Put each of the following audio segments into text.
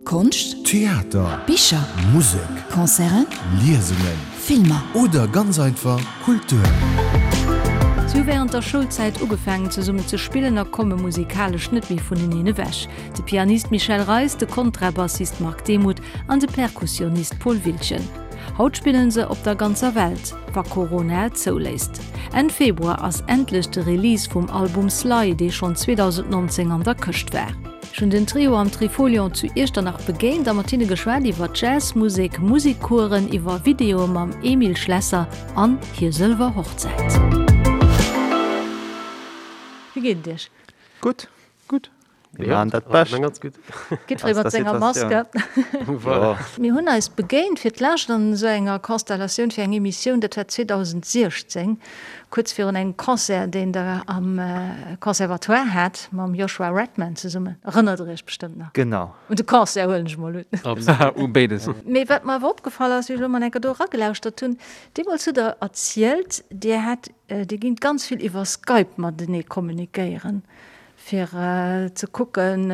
Konscht, Theater, Bicher, Musek, Concerten, Liesungen Filmer. Oder ganz einfach Kultur. Si hu wärend der Schoulzäit ugefaangen zesummen ze spillen a komme musikalesch net méi vuneneen ewech, de Pianist Michel Reis, de Kontrabassist Marc Demuth an de Perkussionist Paul Wiltgen. Haut spillen se op der ganzer Welt, wa Corona et zouléisst. Enn Februar ass endlech de Release vum Album Sly, dee schonn 2019 an der Këscht war. Ech hunn den Trio am Trifolion zu Iechternach begéint a mat hinne geschwat iwwer Jazzmusek, Musikcoursen, iwwer Videoe mam Emile Schlesser an hir sëlwer Hochzäit. Wéi geet et iech? Gutt. Gutt. Mir maachen dat Bescht. Jiddweree mat senger Maske. Mir hunn eis begéint fir d'lescht an esou enger Konstellatioun fir eng Emissioun, dat war 2016, kuerz virun engem Concert, deen Der am Conservatoire hat mam Joshua Redman zesummen. Erënnert Der Iech bestëmmt nach? Genau. Un de Concert huelen ech mol un. U béides. Mee wat mer awer opgefall ass, wéi ech elo mol eng Kéier do eragelauschtert hunn, Deemools hutt Der erzielt, Dir hätt, Dir gingt ganz vill iwwer Skype matenee kommunikéieren. fir ze kucken,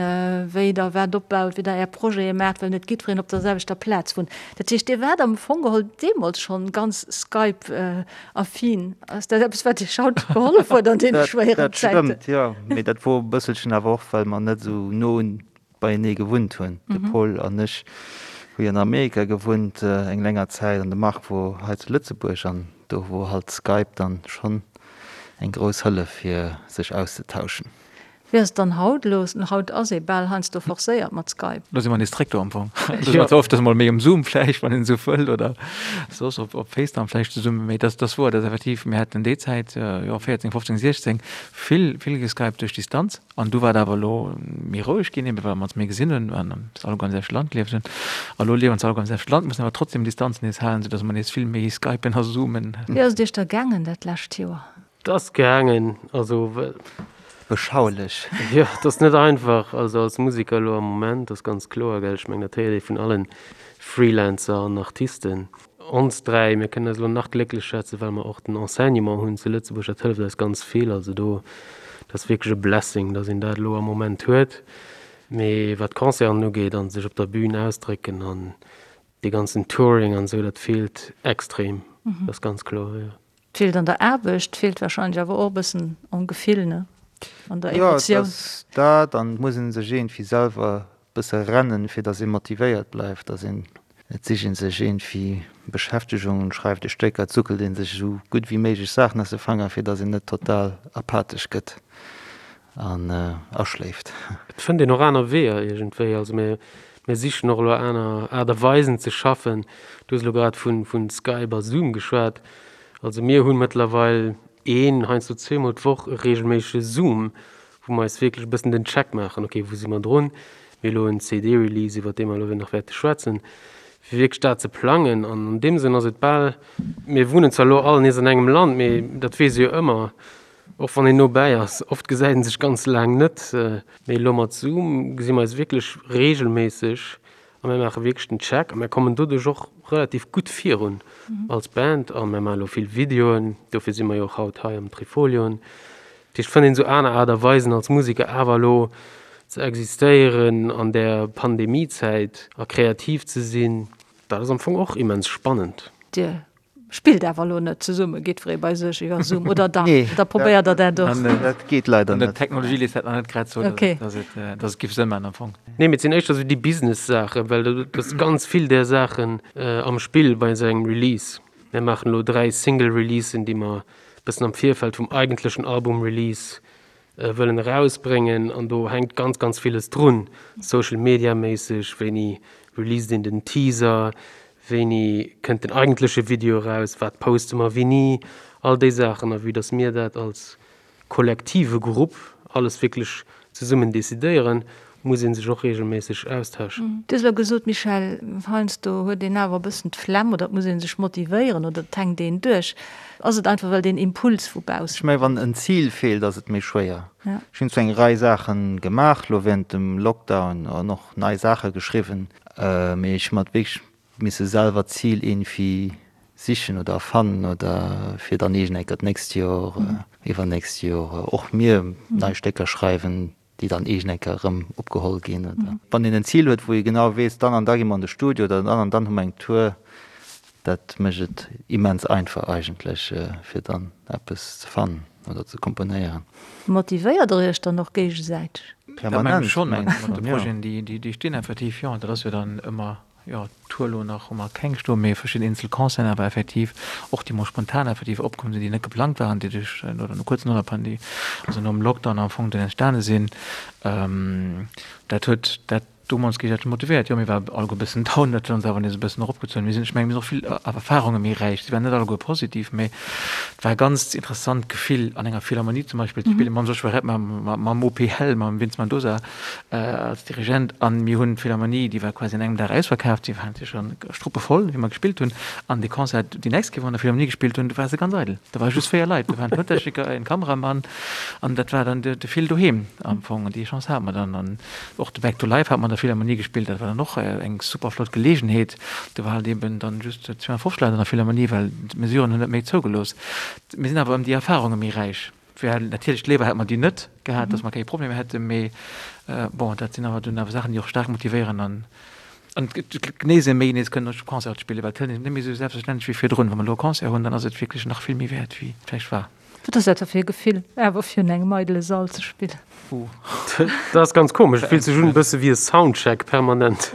wéi Der wat opbaut, wéi Der Är Projete maacht, well net jiddwereen op der selwechter Plaz wunnt. Dat heescht, Dir waart am Fong geholl deemools schonn ganz Skype-affin. Ass dat eppes, wat Iech haut gehollef huet an deene schwéieren Zäiten? Dat stëmmt, jo. Mee dat wor e bësselchen awer och, well mer net esou no beienee gewunnt hunn. De Paul an ech hu jo an Amerika gewunnt eng länger Zäit an de Marc wor hei zu Lëtzebuerg an do wor halt Skype dann schonn eng grouss Hëllef fir sech auszetauschen. Wéi ass et dann haut elo? Haut ass ee bal heiansdo forcéiert mat Skype. Lo si mer nees zréck do am Fong. Lo si mer zwar ofters mol méi um Zoom vläicht, wann een esou wëll, oder soss op op FaceTime vläicht zesummen, mee dat ass wouer, dat ass effektiv, mir haten déi Zäit, jo 14, 15, 16, vill vill geskypt duerch Distanz. An du war et awer elo méi roueg ginn, ebe well mer ons méi gesinn hunn, well mer alleguer am selwechte Land gelieft hunn. A lo liewen se alleguer am selwechte Land, mussen awer trotzdem Distanz nees halen, soudass mer nees vill méi skypen a zoomen. Wéi ass et iech da gaangen dat lescht Joer? Et ass gaangen, also well. Beschaulech. Jo, et ass net einfach, also als Museker elo am Moment, ass ganz kloer, gell. Ech mengen, dat héiert ee vun allen Freelancer an Artisten. Ons 3, mir kënnen eis elo nach glécklech schätzen, well mer och den Enseignement hunn zu Lëtzebuerg, dat hëlleft eis ganz vill. Also do, dat ass wierklech e Blessing, datt een dat elo am Moment huet. Mee wat d'Concerten ugeet a sech op der Bühn ausdrécken an dee ganzen Touring an esou, dat feelt extrem, dat ass ganz kloer, jo. Feelt an der Aarbecht, feelt wahrscheinlech awer och e bëssen am Gefill, ne? An der Emotioun. Jo, et ass dat an et muss ee sech iergendwéi selwer e bësse rennen, fir datt ee motivéiert bleift, datt een, et sicht ee sech iergendwéi Beschäftegung, schreift e Stécker, et suckelt ee sech esou gutt wéi méiglech Saachen aus de Fanger, fir datt een net total apathesch gëtt an aschléift. Et fënnt een och aner Weeër iergendwéi. Also mir, mir sichen och elo aner Aart a Weisen ze schaffen. Du hues elo grad vu Skype a Zoom geschwat. Also mir hu mëttlerweil een, heiansdo zweemol d'Woch e reegelméissege Zoom, wou mer eis wierklech e bëssen den Check maachen, okay, wou si mer drun? Mir hu elo en CD-Release, iwwer dee mer elo nach wäerte schwätzen, fir wierklech dat ze plangen. An an deem Sënn ass et bal, mir wunnen zwar elo all nees an engem Land, mee dat weess ee jo ëmmer, Och wann een no bäi ass, oft gesäit een sech ganz laang net. Mee elo mat Zoom gesi mer eis wierklech reegelméisseg a mir maache wierklech den Check a mir kommen doduerch och relativ gutt virun als Band a mir maache elo vill Videoen, dofir si mer jo och haut hei am Trifolion. Dat heescht, et fënnt een esou aner Aart a Weisen als Museker awer elo ze existéieren an där Pandemiezäit a kreativ ze sinn. Dat ass am Fong och immens spannend. Dir Spillt awer elo net zesumme, jiddweree bei sech iwwer Zoom, oder dach? Oder probéiert der dat och? Dat geet leider net. D'Technologie léisst dat nach net grad zou, dass et giff Sënn maachen am Fong. Nee, mee et sinn éischter esou déi Business-Saachen, well do ass ganz vill där Saachen am Spill bei esou engem Release. Mir maachen elo 3 Single-Releasen, déi mer e bëssen am Virfeld vum eigentlechen Album-Release wëllen erausbréngen an do hänkt ganz ganz villes drun, Social Media méisseg, wéini released een den Teaser, wéini kënnt den eigentleche Video eraus, wat poste mer wéini, all déi Saachen. A vue dass mir dat als kollektive Grupp alles wierklech zesummen decidéieren, muss ee sech och reegelméisseg austauschen. Du hues elo gesot, Michèle, heiansdo huet een awer e bëssen d'Flemm oder et muss ee sech motivéieren oder et hänkt een duerch. Ass et einfach well deen Impuls vu baussen. Ech mengen, wann en Zil feelt, ass et méi schwéier. Ech hunn zwar eng Rei Saache gemaach elo wärend dem Lockdown an och nei Saache geschriwwen, mee ech hu mer wierklech misse selwer d'Zil iergendwéi sichen oder erfannen oder fir dann iergendeng Kéier d'nächst Joer, iwwernächst Joer och mir nei Stécker schreiwen. Déi dann iergend eng Kéier erëm opgeholl ginn. Oder wann een en Zil huet, wou ee genau weess, dann an da gi mer an de Studio oder dann an dann hu mer eng Tour, dat mécht et immens einfach eigentlech, fir dann eppes ze fannen oder ze komponéieren. Motivéiert Der Iech dann och géigesäiteg? Dat mengen ech schonn, mat de Projeten, déi stinn effektiv, jo. Dat ass jo dann ëmmer Jo, d'Tour elo nach hu mer keng stoen, mee verschidden eenzel Concerten awer effektiv, och déi mol spontan effektiv opkomm sinn, déi net geplangt waren, déi duerch oder no kuerz no der Pandemie, also nom Lockdown am Fong dunn entstane sinn. Dat huet dat domols géigesäiteg motivéiert. Jo, mir ware alleguer e bëssen down, dat huet ons awer nees e bëssen eropgezunn. Mir sinn, ech mengen, mir sinn och vill Erfarunge méi räich. Se waren net alleguer positiv, mee et war e ganz interessant Gefill an enger Philharmonie zum Beispill ze spillen, mam Joshua Redman, mam OP Hell, mam Vince Mendoza. als Dirigent an mir hunn d'Philharmonie, déi war quasi an engem Dag ausverkaaft, déi war natierlech dann struppevoll, wéi mer gespillt hunn. An dee Concert, déi nächst Kéier, wou mer an der Philharmonie gespillt hunn, do war se ganz eidel. Do ware just 4 Leit, do waren Tountechniker, en Kameramann an dat war dann de Phil doheem am Fong. An déi Chance hate mer dann. An och de Back to Life hate mer an der Philharmonie gespillt, dat war dann och eng super flott Geleegenheet. Do war halt eben dann just 250 Leit an der Philharmonie, well d'Mesuren hunn net méi zougelooss. Mir sinn awer ëm déi Erfarunge méi räich. Wär natierlech léiwer hätt mer déi net gehat, datt mer keng Problemer hätten, mee bon, dat sinn awer dunn awer Saachen, déi och staark motivéieren an an genéise méi nees kënnen op Concerte spillen, well et hëlt een net méi esou selbstverständlech wéi virdrun. Wa mer elo e Concert hunn, dann ass et wierklech nach vill méi wäert wéi et vläicht war. Wat ass dat da fir e Gefill, awer virun engem eidele Sall ze spillen? Dat ass ganz komesch, et fillt sech un e bësse wéi e Soundcheck permanent.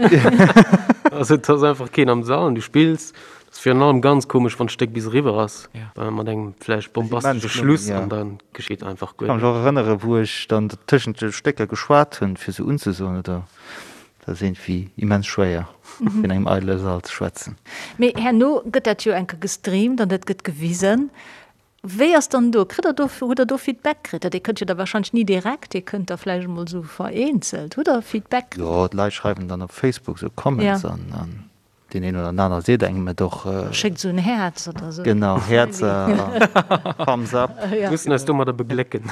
Also et ass einfach keen am Sall an du spills Ass virun allem ganz komesch wann d'Stéck bis eriwwer ass, mat engem vläicht bombastesche Schluss an da geschitt einfach guer Ech ka mech och erënnere wou ech dann tëschent de Stécker geschwat hunn fir se unzesoen oder dat ass iergendwéi immens schwéier fir an engem eidele Sall ze schwätzen. Mee herno gëtt dat jo enke gestreamt an dat gëtt gewisen. Wéi ass dann do, kritt der do, hutt der do Feedback kritt? Dat Dir kënnt jo da wahrscheinlech ni direkt, Dir kënnt da vläicht emol esou vereenzelt. Hutt der Feedback kritt? Jo, d'Leit schreiwen dann op Facebook esou Comments an Deen een oder den aner seet engem et och. Schéckt esou en Häerz oder esou. Genau, Häerzer a Thumbs up. Mir mussen eis domadder beglécken.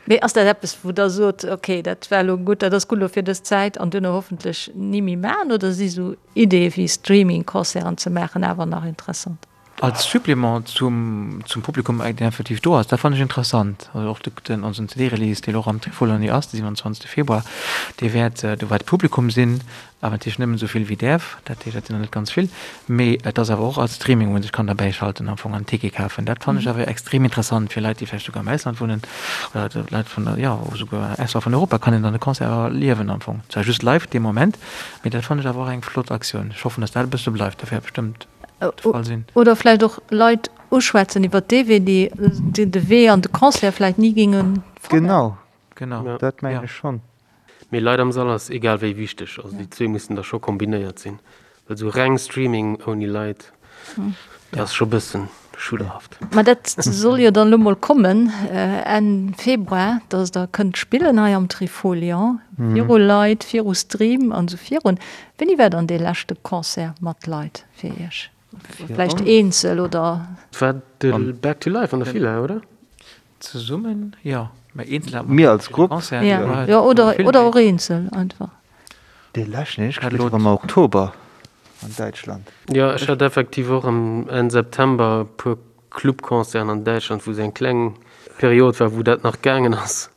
Mee ass dat eppes, wou Der sot, okay, dat war elo gutt, dat ass gutt elo fir dës Zäit an duerno hoffentlech ni méi maachen? Oder si sou Ideeë wéi Streaming-Concerten ze maachen awer nach interessant? Als Supplément zum zum Publikum, deen effektiv do ass, dat fannen ech interessant. Also och den onsen CD-Release, deen och am Trifolion ass, de 27 Februar, dee wäert, do wäert Publikum sinn, awer natierlech nëmmen esou vill wéi däerf, dat heescht, dat sinn der net ganz vill, mee et ass awer och als Streaming, wou een sech kann derbäischalten am Fong an en Ticket kafen. Dat fannen ech awer extrem interessant fir Leit, déi vläicht souguer am Ausland wunnen oder Leit vun der, jo, souguer ausserhalb vun Europa kann een dann de Concert awer erliewen am Fong. Zwar just live dee Moment, mee dat fannen ech awer och eng flott Aktioun. Ech hoffen, datt dat e bësse bleift, dat wär bestëmmt. de Fall sinn. Oder vläicht och Leit uschwätzen iwwer dee Wee, déi de Wee an de Concert vläicht ni géinge fannen. Genau, genau, dat mengen ech schonn. Mee Leit am Sall ass egal wéi wichteg. Also déi zwee mussen da scho kombinéiert sinn. Well esou reng Streaming ouni Leit, dat ass scho bëssen schudderhaft. Ma dat soll jo dann elo mol kommen Enn Februar, dass der kënnt spillen hei am Trifolion, viru Leit, viru Stream an esou virun. Wéini war dann dee leschte Concert mat Leit fir Iech? Vläicht eenzel oder? Et war de Back to Life an der Villa, oder? Zesummen, jo. Mä eenzel hat mer als Grupp. Jo, oder och eenzel einfach. Dee leschten, deen ech gespillt hunn, war am Oktober an Däitschland. Jo, ech hat effektiv och am Enn September e puer Clubconcerten an Däitschland, wou esou eng kleng Period war, wou dat nach gaangen ass.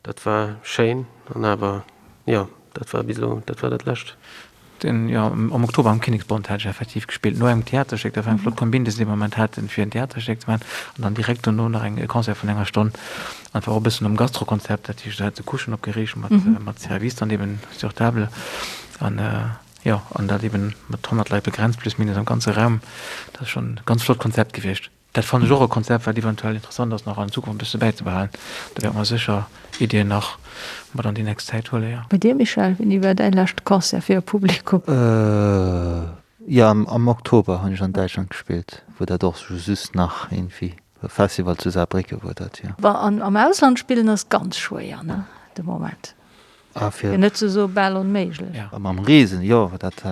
Dat war schéin an awer, jo, dat war bis elo, dat war dat lescht. Den, jo, am Oktober am Kinneksbond hat ech effektiv gespillt, no engem Theaterstéck. Dat war eng flott Kombin, déi se dee Moment haten, fir en Theaterstéck ze maachen an dann direkt dono nach eng, e Concert vun enger Stonn. An war och e bëssen nom Gastrokonzept, dat heescht, do hat se Couchen opgeriicht mat, mat Service dann eben sur table an, jo, an dat eben mat 100 Leit begrenzt, plus minus am ganze Raum. Dat ass schonn e ganz flott Konzept gewiescht. Dat fannen ech och e Konzept, wat eventuell interessant ass, nach an Zukunft e bësse bäizebehalen. Do wäerte mer sécher Iddien nach mat an déi nächst Zäit huelen, jo. Bei dir, Michel, wéini war däi leschte Concert fir e Publikum? Jo, am Oktober hunn ech an Däitschland gespillt, wou dat och just nach iergendwéi e Festival zu Saarbrécken wor dat, jo. An am Ausland spillen ass ganz schwéier, ne, de Moment. Fir net ze soe bal onméiglech. A mam Reesen, jo, dat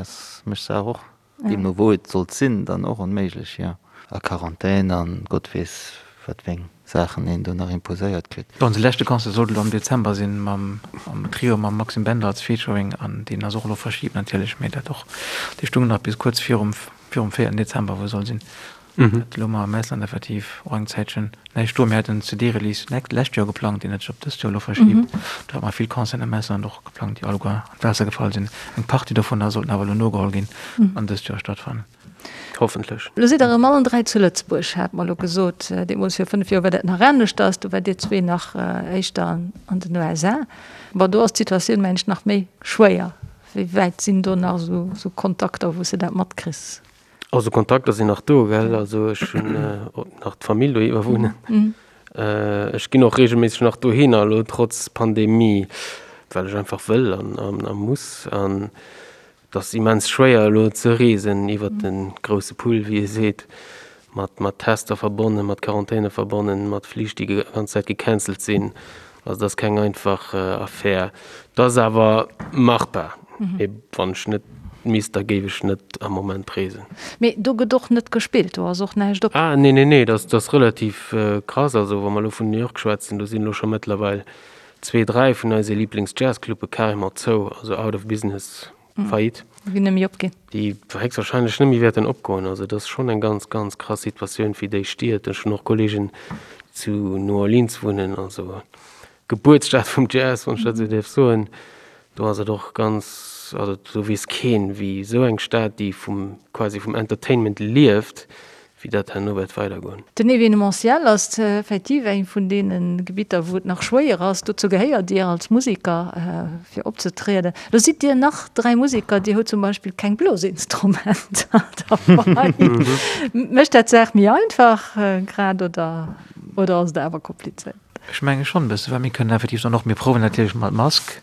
mécht d'Saach och Deemno wou et sollt sinn, dann och onméiglech, jo. A Quarantän an Gott weess wat wéi eng Saachen een do nach imposéiert kritt. Onse leschte Concert sollt elo am Dezember sinn mam am Trio mam Maxime Bender als Featuring an deen ass och elo verschibt natierlech, mee dat och, dee stung nach bis kuerz virum virum véierten Dezember wou e soll sinn. Dat elo mar am Ausland effektiv och eng Zäitchen näischt do. Mir haten en CD-Release lescht Joer geplangt, deen huet sech op dëst Joer elo verschibt. Do hate mer vill Concerten am Ausland och geplangt, déi alleguer an d'Waasser gefall sinn. Eng Partie dovunner sollten awer elo nogeholl ginn an dëst Joer stattfannen. Hoffentlech. Elo sidd der erëm allen 3 zu Lëtzebuerg, hat mer elo gesot. Deemools vir 5 Joer war dat nach aneschters, do waart dir zwee nach éischter an den USA. Bon, do ass d'Situatioun, mengen ech, nach méi schwéier. Wéi wäit sinn do nach esou Kontakter, wou s de dat matkriss? Also Kontakter sinn nach do, gell. Also ech hunn nach d'Famill dohiwwer wunnen. Ech ginn och reegelméisseg nach dohinner, elo trotz Pandemie, well ech einfach wëll an a muss. An et ass immens schwéier elo ze reesen iwwert de grousse Pull, wéi ee seet, mat mat Tester verbonnen, mat Quarantäne verbonnen, mat Flich, déi déi ganz Zäit gecancelt sinn. Also et ass keng einfach Affär. Et ass awer machbar. Mee wann ech net misst, da géif ech net am Moment reesen. Mee do gëtt och net gespillt, do ass och näischt op? Ah nee, nee, nee, dat ass relativ krass. Also wa mer elo vun New York schwätzen, do sinn elo scho mëttlerweil zwee, dräi vun eise Liiblings-Jazzclubbe carrément zou, also out of business, Faillite. Déi net méi opginn. Déi héchstwahrscheinlech net méi wäerten opgoen. Also et ass schonn eng ganz, ganz krass Situatioun fir déi Stied. Ech hunn och Kolleegen, déi zu New Orleans wunnen, also Gebuertsstad vum Jazz, wann ech dat esou däerf soen. Do ass et och ganz, also do weess keen, wéi esou eng Stad, déi vum, quasi vum Entertainment lieft, wéi dat herno wäert weidergoen. Den Evenementiel ass effektiv eng vun deene Gebitter, wou et nach schwéier ass. Dozou gehéiert Dir als Museker, fir opzetrieden. Lo sidd Dir nach 3 Museker, Dir hutt zum Beispill keng Blosinstrumenter derbei. Mécht dat d'Saach méi einfach grad oder oder ass et awer komplizéiert? Ech menge schonn e bësse, well mir kënnen effektiv dann och, mir prouwen natierlech mat Mask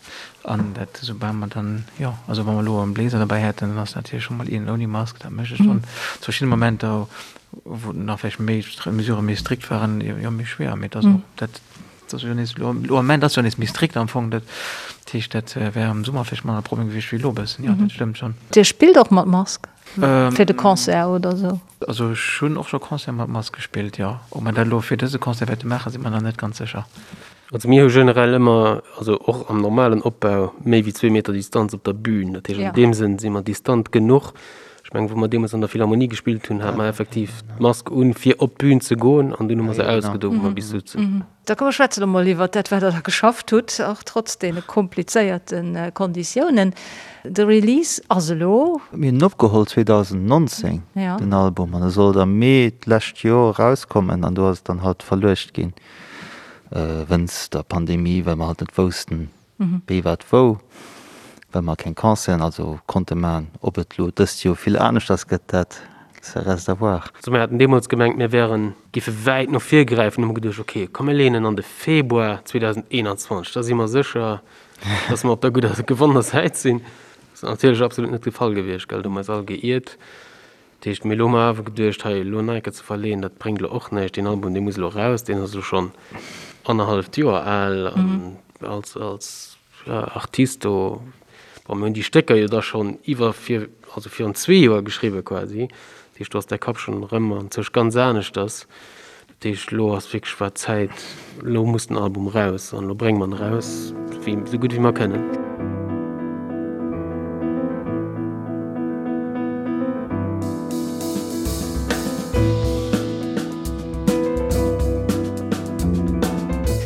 an dat esoubal mer dann, jo, also wa mer elo e Bléiser derbäi hätten, dann ass natierlech scho mol een ouni Mask, dat mécht et schonn zu verschiddene Momenter, wou nach vläicht méi d'Mesurë méi strikt waren, jo méi schwéier. Mee et ass och dat, dat ass jo nees elo, elo am Moment ass jo nees méi strikt am Fong, dat heescht, dat wär am Summer vläicht manner e Problem gewiescht wéi elo e bëssen, jo, dat stëmmt schonn. Dir spillt och mat Mask fir de Concert oder esou? Also ech hunn och scho Concerte mat Mask gespillt, jo. Ob mer dat elo fir dëse Concert wäerte maachen, si mer nach net ganz sécher. Also mir hu generell ëmmer, also och am normalen Opbau, méi wéi zwee Meter Distanz op der Bühn. Dat heescht, an deem Sënn si mer distant genuch. Ech mengen, wou mer deemools an der Philharmonie gespillt hunn, hate mer effektiv d'Mask un, fir op d'Bühn ze goen an dunn hu mer se ausgedo, wou mer bis souzen. Da komm mer schwätzen elo mol iwwert dat, wat Der da geschafft hutt, och trotz deene komplizéierte Konditiounen. De Release ass elo. Mir hunn en opgeholl 2019, den Album, an e sollt am Mee d'lescht Joer erauskommen an do ass et dann halt verluecht ginn, wënst der Pandemie, well mer halt net woussten, Wéi, wat, wou, well mer keng Concerten also konnte man. Ob et lo dëst Joer vill aneschters gëtt, dat ça reste à voir. Also mir haten deemools gemengt, mir wären, géife wäit no vir gräifen, hu mer geduecht, ok, komm mir leeën en an de Februar 2021, da si mer sécher, dass mer op der gudder, gewonnener Säit sinn. Dat ass natierlech absolut net de Fall gewiescht, gell, do hu mer eis all geiert. Dat heescht, mee elo hu mer awer geduecht, hei elo nach eng Kéier ze verleeën, dat bréngt elo och näischt. Deen Album, dee muss elo eraus, deen ass elo schonn annerhalleft Joer al an als, als Artist do, bon, mir hunn déi Stécker jo da schonn iwwer vir, also virun zwee Joer geschriwwe quasi. Dat heescht, do ass däi Kapp schonn erëm anzwousch ganz aneschters. Dat heescht, elo ass wierklech war d'Zäit, elo muss den Album eraus an elo brénge mer en eraus, wéi esou gutt wéi mer kënnen.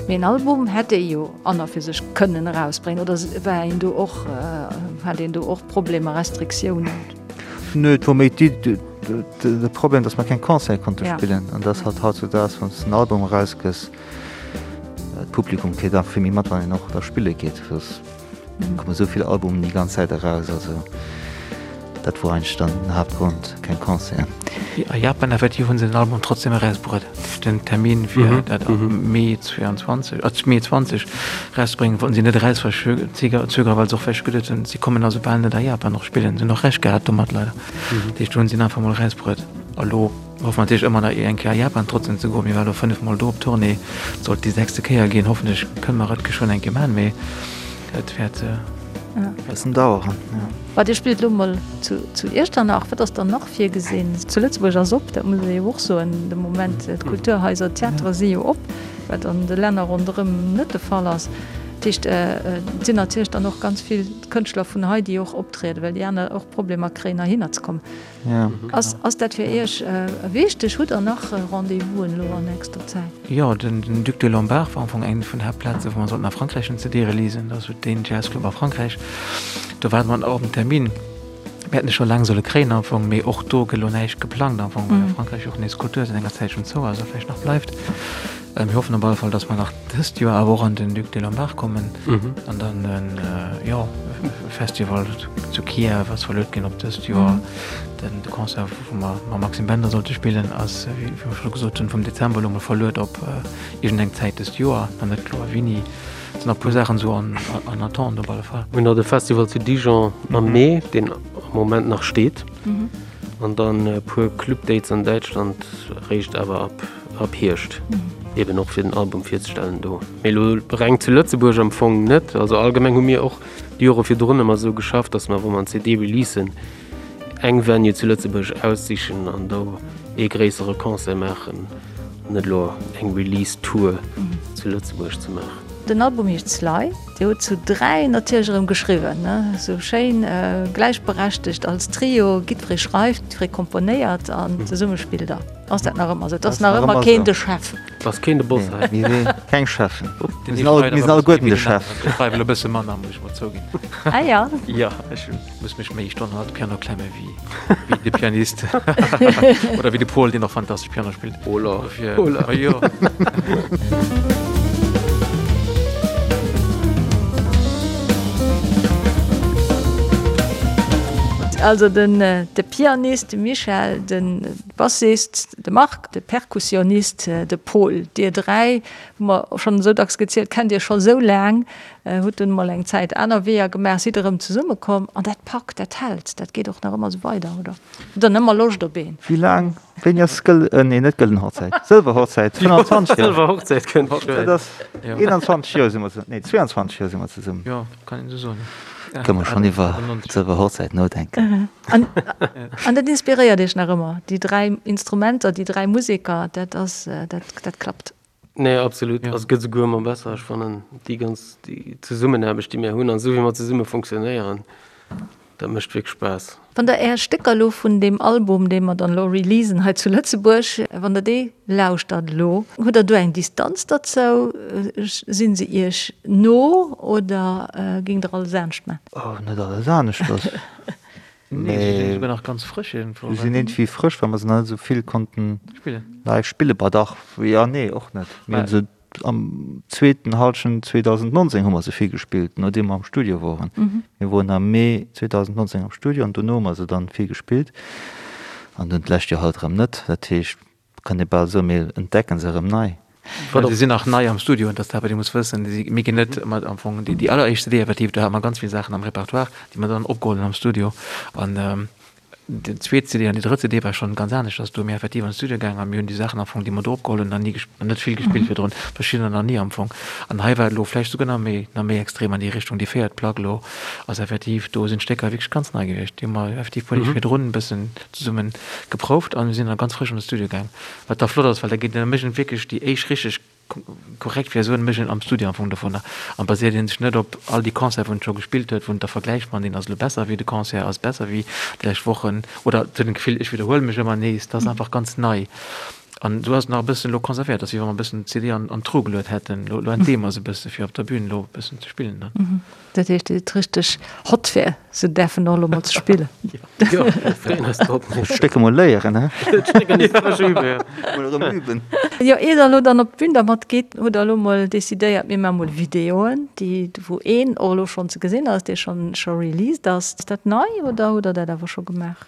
Mee en Album hätt ee jo an a fir sech kënnen erausbréngen, oder war een do och, hat een do och Problemer, Restriktiounen? Nö, et wor méi d'Iddi, De Problem, dass mer keng Concerte konnte spillen an dass halt hautzudaags, wann s de en Album erausgëss, d'Publikum kritt einfach vill méi mat, wann een och da spille geet. Et komme sou vill Albumen déi ganz Zäit eraus, also dat wor eigentlech dann den Haaptgrond, keng Concerten. A Japan effektiv hu se den Album trotzdem erausbruet. Den Termin fir dat am Mee 22, Mee 20 erauszebréngen, wollten si net erausverzögeren, well se och vläicht geduet hunn, si kommen also bal net a Japan och spillen. Se hunn och Recht gehat domat leider. Dat heescht, do hunn si en einfach mol erausbruet. A lo hoffe mer natierlech ëmmer nach eng Kéier a Japan trotzdem ze goen. Mir ware lo 5 mol do op Tournée, et sollt déi sechste Kéier ginn. Hoffentlech kënne mer et geschwënn eng Kéier maachen, mee et wäert e bëssen daueren, jo. Mä Dir spillt elo mol zu Iechternach. Wat ass dann nach virgesinn? Zu Lëtzebuerg ass op, dat muss ee jo och soen de Moment. D'Kulturhaiser, d'Theatere si jo op, wat an de Länner ronderëm net de Fall ass. Dat heescht, et sinn natierlech dann och ganz vill Kënschtler vun hei, déi och optrieden, well déi aner och Problemer kréien, heihinner ze kommen. Ass, ass dat fir Iech wichteg? Hutt Der nach Rendez-vousen elo an nächster Zäit? Jo, den Duc des Lombards war am Fong eng vun den Haaptplazen, wou mer sollten a Frankräich en CD releasen. Dat ass esou deen Jazzclub a Frankräich. Do waarde mer nach op en Termin. Mir hätten e scho laang solle kréien am Fong, mee och do gëtt elo näischt geplangt am Fong, well a Frankräich och nees d'Kultur säit enger Zäitchen zou ass a vläicht nach bleift. Mir hoffen op alle Fall, dass mer nach dëst Joer awer och an den Duc des Lombards kommen an dann en, jo, Festival zu Kiew ass verluet ginn op dëst Joer. Den de Concert, wou mer mam Maxime Bender sollte spillen, ass, wéi mer scho gesot hunn, vum Dezember elo mol verluet op iergendeng Zäit dëst Joer, nach net kloer wéini. Et sinn nach e puer Saachen esou en attente op alle Fall. Mir hunn nach de Festival zu Dijon am Mee, deen am Moment nach steet, an dann e puer Club-Dates an Däitschland, réischt awer ab ab Hierscht, eben och fir den Album virzestellen do. Mee elo reng zu Lëtzebuerg am Fong net. Also allgemeng hu mir och déi Jore virdrun ëmmer esou geschafft, datt mer, wa mer en CD releasen, eng Venue zu Lëtzebuerg aussichen an do ee gréissere Concert maachen, net elo eng Release-Tour zu Lëtzebuerg ze maachen. Den Album heescht Sly. Dir hutt zu 3 natierlech erëm geschriwwen, ne? Esou schéin gläichberechtegt als Trio, jiddweree schreift, jiddweree komponéiert an zesumme spillt der. Ass dat nach ëmmer esou? Et ass nach ëmmer keen de Chef? Et ass keen de Boss hei. Mir si keng Cheffen. Mir sinn all, mir sinn alleguerten de Chef. Ech schreiwen elo e bësse manner, muss ech mol zouginn. Ah ja. Jo, ech muss mech méi Stonnen hannert de Piano klemme wéi, wéi de Pianist. Oder wéi de Pol, deen och fantastesch Piano spillt. Hola. Dofir, Hola. Jo. Also den, de Pianist, de Michel, den Bassist, de Marc, de Perkussionist, de Pol. Dir 3 hu mer schonn esou dacks gezielt, kennt Iech scho sou laang, hutt dunn emol eng Zäit aner Weeër gemaach, sidd erëm zesummekomm an dat packt, dat hält, dat geet och nach ëmmer esou weider, oder? Hutt Der ëmmer Loscht op een? Wéi laang? Wéini ass gëll, nee net gëllen Hochzäit, sëlwer Hochzäit, 25 Joer. Sëlwer Hochzäit kënnt geschwënn. Dat ass 21 Joer si mer, nee 22 Joer si mer zesummen. Jo, kann een esou soen. Kënne mer schonn iwwer d'sëlwer Hochzäit nodenken. An, an dat inspiréiert Iech nach ëmmer, déi 3 Instrumenter, déi 3 Museker, dat ass, dat, dat klappt? Nee, absolut. Also et gëtt esouguer ëmmer besser. Ech fannen déi ganz, déi Zesummenaarbecht, déi mir hunn an esou wéi mer zesumme funktionéieren, dat mécht wierklech Spaass. Wann Der Är Stécker elo vun deem Album, dee mer dann elo releasen hei zu Lëtzebuerg, wann Der dee lauschtert elo, hutt Der do eng Distanz derzou? Sinn se Iech no oder géingt Der alles anescht man? Oh, net alles aneschters. Nee, se sinn esouguer nach ganz frësch iergendwou. Se sinn iergendwéi frësch, well mer se nach net esou vill konnten live spillen. Bah dach, jo, nee, och net. Mir hunn se Am zweeten Halschent 2019 hu mer se vill gespillt, nodeem mer am Studio woren. Mir woren am Mee 2019 am Studio an dono hu mer se dann vill gespillt an dunn d'lescht Joer halt erëm net. Dat heescht, kann ee bal soen, mir entdecken se erëm nei. Well se sinn nach nei am Studio an dat ass dat, wat ee muss wëssen. Mir ginn net mat am Fong déi alleréischt CD effektiv, do hate mer ganz vill Saachen am Repertoire, déi mer dann opgeholl hunn am Studio an Déi zweet CD an déi drëtt CD war schonn ganz aneschters. Do hu mir effektiv an de Studio gaangen a mir hunn déi Saachen am Fong, déi mer do opgeholl hunn, nach ni gesp-, net vill gespillt virdrun, verschiddener nach ni am Fong. An hei war et elo vläicht souguer nach méi, nach méi extrem an déi Richtung. Déi véiert Plack elo ass effektiv, do sinn d'Stécker wierklech ganz nei gewiescht. Déi hu mer effektiv puer Deeg virdrun e bëssen zesumme geprouft a mir sinn da ganz frësch an de Studio gaang. Wat da flott ass, well da geet, da mécht een wierklech déi éischt richteg Korrekt wär esou en Mécht een am Studio am Fong dovunner an baséiert een sech net op all déi Concerte wou en scho gespillt huet, wou en da vergläicht, man deen ass elo besser wéi de Concert ass besser wéi déi lescht Wochen oder et huet en d'Gefill ech widderhuele mech ëmmer nees, dat ass einfach ganz nei an esou ass et nach e bëssen elo konservéiert, ass wéi wa mer e bëssen d'CD an an d'Truh geluet hätten, elo elo entdeeë mer se e bësse fir op der Bühn elo e bëssen ze spillen dann. Dat heescht, Dir sidd richteg hot fir se däerfen och elo mol ze spillen. Jo, mir freeën eis drop. D'Stécker mol léieren, he? D'Stécker nees frësch üben, jo. Mol erëm üben. Jo, ier Der elo dann op d'Bün dermat gitt, hutt Der elo mol decidéiert, mir maache mol Videoen, déi, wou een och elo schonn ze gesinn ass, dee schonn scho released ass. Ass dat nei oder hutt Der dat awer scho gemaach?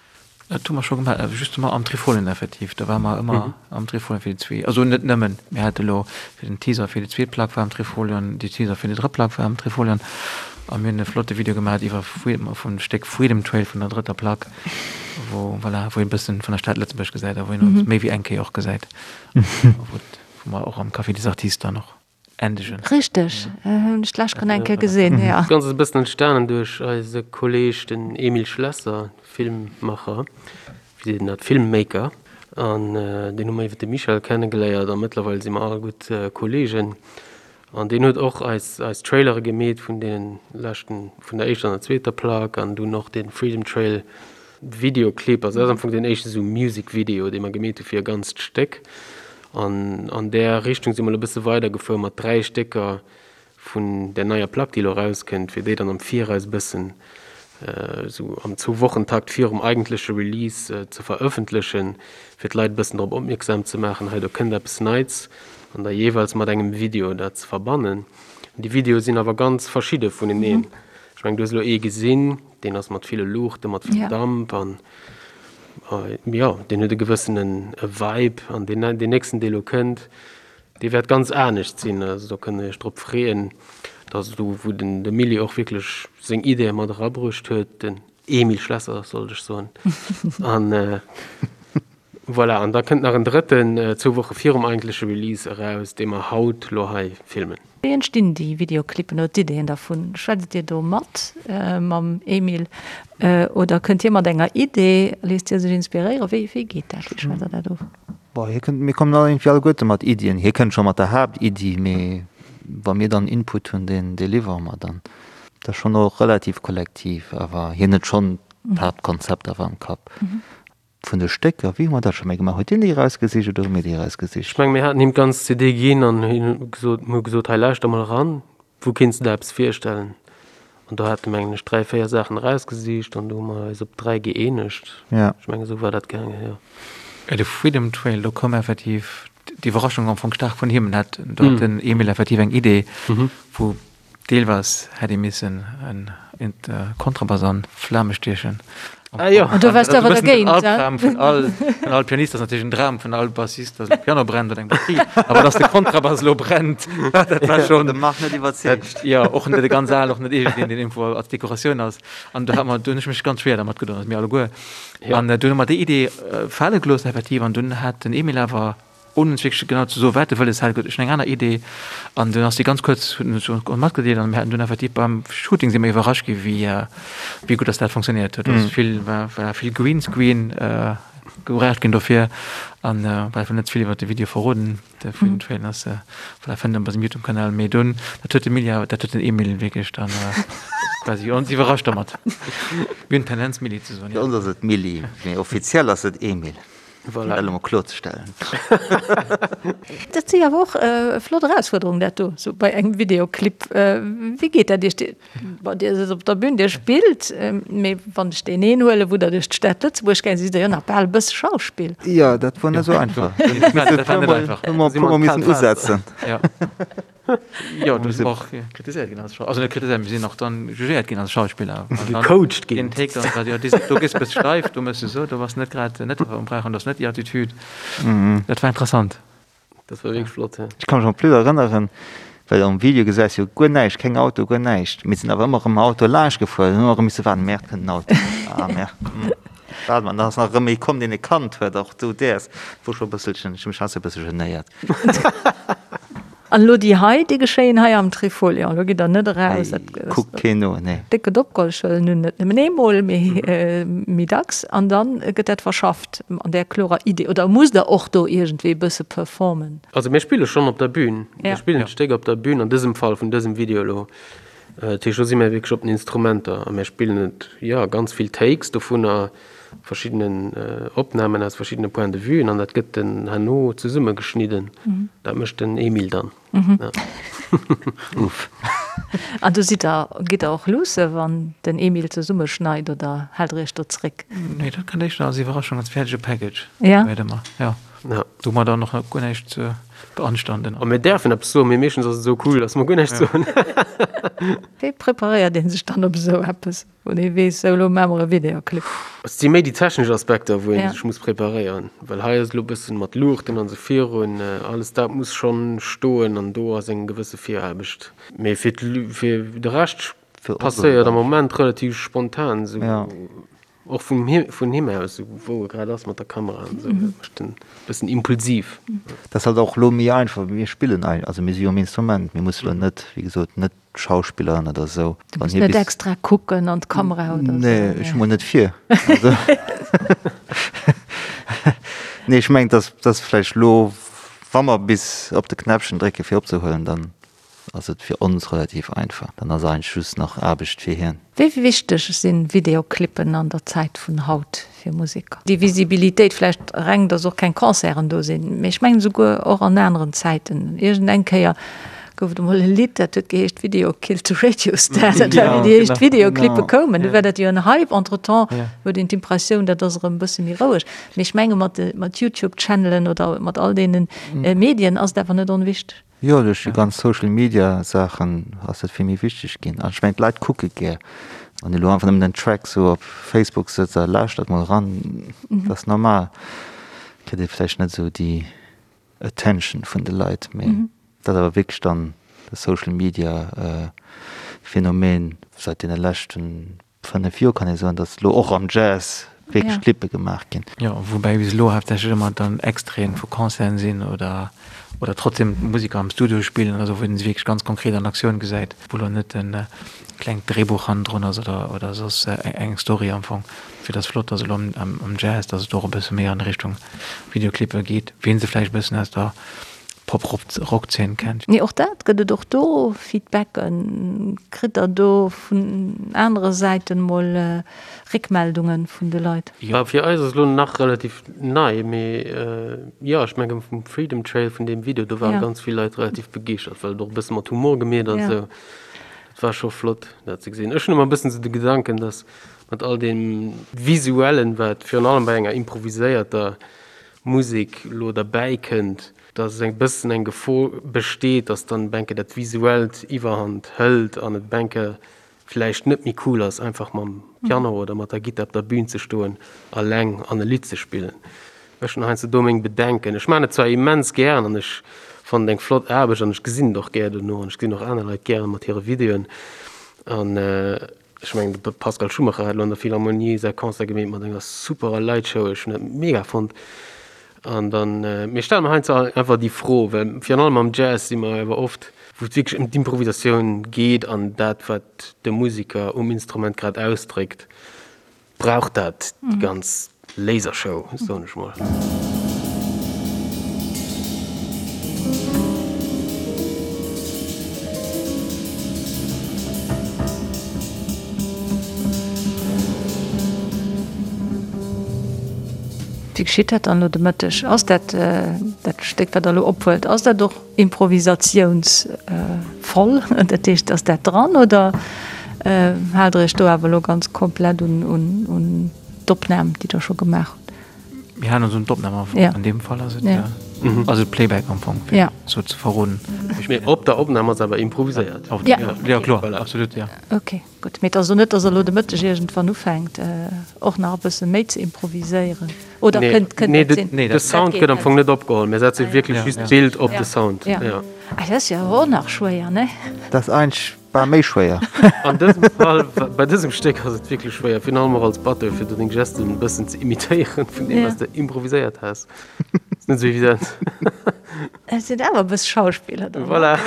Dat hu mer scho gemaach, justement am Trifolien effektiv. Do ware mer ëmmer am Trifolion fir déi zwee, also net nëmmen, mir hate lo fir den Teaser fir déi zweet Plack war am Trifolion, déi Teaser fir déi drëtt Plack war am Trifolion a mir hunn e flotte Video gemaach iwwer vum Stéck Freedom Trail vun der drëtter Plack, wou, voilà, wou een e bëssen vun der Stad Lëtzebuerg gesäit a wou een ons méi wéi eng Kéier och gesäit, wou mer och am Café des Artistes dann och. endegen. Richteg, hunn ech d'lescht schonn eng Kéier gesinn, jo. Dat Ganzt ass e bëssen entstanen duerch eise Kolleeg, den Emile Schlesser, Filmmacher, wéi seet een dat, Filmmaker, an deen hu mer iwwer de Michel kennegeléiert a mëttlerweil si mer all gutt Kolleegen. An deen huet och eis eis Trailere gemeet vun deenen leschten, vun der éischter an der zweeter Plack an dunn och dee Freedom Trail Videoclip. Also dat ass am Fong deen éischte sou Music Video, dee mer gemeet hu fir e ganzt Stéck. An an där Richtung si mer elo e bësse weidergefuer mat 3 Stécker vun där neier Plack, déi elo erauskënnt, fir déi dann am Viraus e bëssen esou am Zwou-Wochen-Takt virum eigentleche Release ze verëffentlechen, fir d'Leit e bëssen drop opmierksam ze maachen, hei do kënnt eppes Neits, an da jeeweils mat engem Video dat ze verbannen. Déi Videoe sinn awer ganz verschidde vuneneen. Ech mengen, du hues elo ee gesinn, deen ass mat ville Luuchten, mat vill Damp an jo, deen huet e gewëssene Vibe. An deen nächsten, dee elo kënnt, Dee wäert ganz anescht sinn, also do kënnt der iech drop freeën. Dat ass do, wou den de Milly och wierklech seng Ideeë mat erabruecht huet, den Emile Schlesser sollt ech soen. An voilà, an da kënnt nach en drëtten zwou Woche virum eigentleche Release eraus, dee mer haut lo hei filmen. Wéi entstinn déi Videoclippen oder d'Ideeën dervun? Schwätzt Dir do mat mam Emile oder kënnt hie mat enger Idee? Léisst hie sech inspiréieren? Wéi geet dat? Wéi schwätzt Der dat of? Bon, hie kënnt, mir kommen all iergendwéi alleguerte mat Iddien. Hie kënnt scho mat der Haaptiddi, mee wa mir dann Input hunn, deen dee liwwere mer dann. Dat ass schonn och relativ kollektiv, awer hien huet schonn d'Haaptkonzept awer am Kapp. Vun de Stécker, wéi hu mer dat scho méi gemaach? Huet hien déi erausgesicht oder hu mir déi erausgesicht? Ech menge mir haten him d'ganz CD ginn an hien huet gesot, mir hu gesot, hei lauschter mol eran, Wou kéints de der eppes virstellen? An do hat e mengen ech 3, 4 Saachen erausgesicht an do hu mer eis op 3 gëeenegt. Ja. Ech mengen esou war dat gaangen, jo. De Freedom Trail, do koum effektiv d'Iwwerraschung am Fong staark vun him. Hat, do hat den Emil effektiv eng Idee, wou deelweis hätt ee missen en Kontrabass an Flame stiechen. Ah jo. An do waars du awer dergéint, he? Albdram vun all, vun all Pianist ass natierlech en Dram vun all Bassist, dass de Piano brennt oder eng Batterie. Awer dass de Kontrabass elo brennt, dat war schonn. De Marc net iwwerzeegt. Jo, och net e ganz al, och net iergendeen, deen iergendwou als Dekoratioun ass. An do hat mer, do hunn ech mech ganz schwéier dermat gedoen, also mir alleguer. An dunn hu mer déi Idee fale gelooss effektiv an dunn hat den Emil awer Ouni ons wierklech genau ze soen, wat e wëlles hat, huet ech eng aner Idee an dunn ass déi ganz kuerz, huet en ons matgedeelt an mir haten dunn effektiv beim Shooting si mir iwwerrascht gi wéi wéi gutt datt dat funktionéiert huet. Also vill war war vill Greenscreen gebraucht ginn dofir an well ech wëll net ze vill iwwer de Video verroden, de Freedom Trail ass voilà fënnt en bei sengem Youtube-Kanal, mee dunn dat huet de Milly awer dat huet den Emil wierklech dann quasi ons iwwerrascht dermat. Mir hunn d'Tendenz Milly ze soen, jo. Fir ons ass et Milly, mee offiziell ass et Emil. Voilà. Dat elo mol kloerzestellen. Dat si awer och flott Erausfuerderungen, dat do, sou bei engem Videoclip. Wéi geet dat Iech? Bon, Dir sidd op der Bün, Dir spillt, mee wann ech deen een huelen, wou Der duerch d'Stad Lëtzebuerg gaang sidd, sidd Der jo nach bal e bësse Schauspill. Jo, dat wor net esou einfach. Dat war net einfach. Hu mer e puermol missen usetzen. Jo, du sinn och kritiséiert ginn als Schauspiller. Also net kritiséiert, mir sinn och dann jugéiert ginn als Schauspiller. Gecoacht ginn. Den Take dann war, jo, do gëss bëss steif, do mëss du esou, do bass net grad net um Brauch an do ass net déi Attitude. Dat war interessant. Dat war wierklech flott, ja. Ech ka mech en plus erënneren, well am Video gesäis jo guer näischt, keng Auto, guer näischt. Mir sinn awer ëmmer erëm mam Auto laanscht gefuer, hunn ëmmer erëm misse waarden, Merde, kënnt en Auto? Ah, merde. Waarde mer, dann ass nach erëm ee komm, deen e kannt huet, och du däers. Wor scho e bësselchen, ech hu mech heiansdo e bësse genéiert. An elo déi hei, déi geschéien hei am Trifolion. Elo gitt der net eraus. Hei kuckt keen no, nee. Déck gëtt opgeholl, ech wëll nun net nëmmen eemol, mee méi dacks. An da gëtt dat verschafft an där klorer Idee. Oder musst der och do iergendwéi e bësse performen? Also mir spille schonn op der Bühn. Mir spillen d'Stéck op der Bühn, an dësem Fall vun dësem Video elo. Dat heescht, do si mir wierklech op den Instrumenter a mir spillen et, jo, ganz vill Takes dovunner. verschiddenen Opnamen aus verschiddene Point de vuen an dat gëtt den herno zesummegeschnidden. Dat mécht den Emile dann. Uff. An du sidd der, gitt der och luusse wann den Emile zesummeschneit oder haalt der iech do zréck? Nee, dat kënnt éischter als Iwwerraschung, als fäerdege Package. Ja. Wéi ëmmer, ja. Ja. Do hu mer dann och nach guer näischt ze beanstanden. A mir däerfen eppes soen, mee meeschtens ass et esou cool, datt mer guer näischt soen. Wéi preparéiert ee sech dann op esou eppes? Wou ee weess, sou elo maache mer e Videoclip. Et si méi déi technesch Aspekter, wou ee sech muss preparéieren, well hei ass elo e bëssen mat Luuchten an esou virun, alles dat muss schonn stoen an do ass eng gewësse Viraarbecht. Mee fir fir de Rescht passéiert am Moment relativ spontan, esou och vum vun him aus, esou wou e grad ass mat der Kamera an esou, dat mécht en e bëssen impulsiv. Dat ass halt och elo méi einfach, mir spillen, also mir si jo um Instrument, mir musse elo net, wéi gesot, net Schauspilleren oder sou. Du muss net extra kucken an d'Kamera oder sou. Nee, ech hu mol net vir. Nee, ech mengen, dass dass vläicht lo, wa mer bis op de Knäppchen drécke fir opzehuelen, dann. ass et fir ons relativ einfach. Dann ass eigentlech just nach Aarbecht fir hien. Wéi wichteg si Videoclippen an der Zäit vun haut fir Museker? Déi Visibilitéit, vläicht reng, datt och keng Concerten do sinn, mee ech mengen esouguer och an aneren Zäiten. Iergend eng Kéier gouf et emol e Lidd, dat huet geheescht Video killed the radio star. Dat war wéi déi éischt Videoclippe koumen, du war dat jo en Hype. Entretemps huet een d'Impressioun, dat ass erëm e bësse méi roueg. Mee ech menge mat de mat YouTube-Channelen oder mat all deene Medien ass et awer net onwichteg. Jo, duerch déi ganz Social Media Saachen ass dat vill méi wichteg ginn. An ech mengen d'Leit kucke gär. Wann ee lo einfach nëmmen den Track sou op Facebook sëtzt a lauschtert mol eran, dat ass normal, kritt ee vläicht net esou déi Attention vun de Leit. Mee dat ass awer wierklech dann de Social Media Phänomen säit deene leschten 5 Joer kann ee soen, datt elo och am Jazz wierklech Clippe gemaach ginn. Jo, woubäi bis elo haaptsächlech ëmmer dann Extraiten vu Concerten sinn oder oder trotzdem d'Museker am Studio spillen oder sou, wou een se wierklech ganz konkret an Aktioun gesäit, wou elo net e klengt Dréibuch hannendrun ass oder oder soss eng Story am Fong. Fir et ass flott, datt elo am Jazz, datt et och e bësse méi an Richtung Videoclippe geet, wéi een se vläicht e bëssen aus der Pop-Rock-Zeen kennt. Mee och dat, gëtt et och do Feedbacken? Kritt der do vun anere Säiten mol Réckmeldungen vun de Leit? Jo, fir eis ass elo nach relativ nei, mee jo, ech mengen vum Freedom Trail, vun deem Video, do ware ganz vill Leit relativ begeeschtert, well et och e bësse mat Humor gemeet ass esou. Dat war scho flott, dat ze gesinn. Ech hunn ëmmer e bëssen esou de Gedanken, dass mat all deem Visuellen, wat virun allem bei enger improviséierter Musek elo derbäi kënnt, dass e bëssen eng Gefor besteet, dass dann benke dat Visuellt Iwwerhand hëlt an et benke vläicht net méi cool ass, einfach mam Piano oder mat der Gittar op der Bühn ze stoen, alleng an e Lidd ze spillen. Ech hunn heiansdo do meng Bedenken. Ech maachen et zwar immens gären an ech fannen et eng flott Aarbecht an ech gesinn et och gär dono an ech gesinn och aner Leit gären mat hire Videoen an, Ech mengen de Pascal Schumacher hat elo an der Philharmonie säi Concert gemeet mat enger superer Lightshow. Ech hunn dat mega fonnt. An dann, mir stelle mer heiansdo einfach déi Fro, well virun allem am Jazz si mer awer oft, wou et wierklech ëm d'Improvisatioun geet an dat, wat de Musiker um Instrument grad ausdréckt, brauch dat déi ganz Lasershow, soen ech mol. Wéi geschitt dat dann elo de Mëtteg? Ass dat dat Stéck, wat Der elo ophuelt, ass dat och improvisatiounsvoll? Dat heescht, ass dat dran oder haalt Der Iech do awer elo ganz komplett un d'Opnam, déi Der scho gemaach hutt? Mir halen ons un d'Opnam am Fong. An deem Fall ass et, ass et Playback am Fong, fir sou ze verroden. Mee op der Opnam ass awer improviséiert. Jo, kloer, absolut, jo. Ok. Gutt, mee et ass elo net, datt Der elo de Mëtteg iergendwann ufänkt, och nach e bësse méi ze improviséieren, oder kënnt kënnt dat sinn? Nee, de Sound gëtt am Fong net opgeholl. Mir setze wierklech just d'Bild op de Sound. Ja. Ah, dat ass jo awer och nach schwéier, ne? Dat ass eigentlech bal méi schwéier. An dësem Fall, bei dësem Stéck ass et wierklech schwéier, virun allem och als Batteur, fir do deng Gesten e bëssen ze imitéieren vun deem, wat s de improviséiert has. Ass net esou evident. Et sinn awer e bësse Schauspiller dann. Voilà.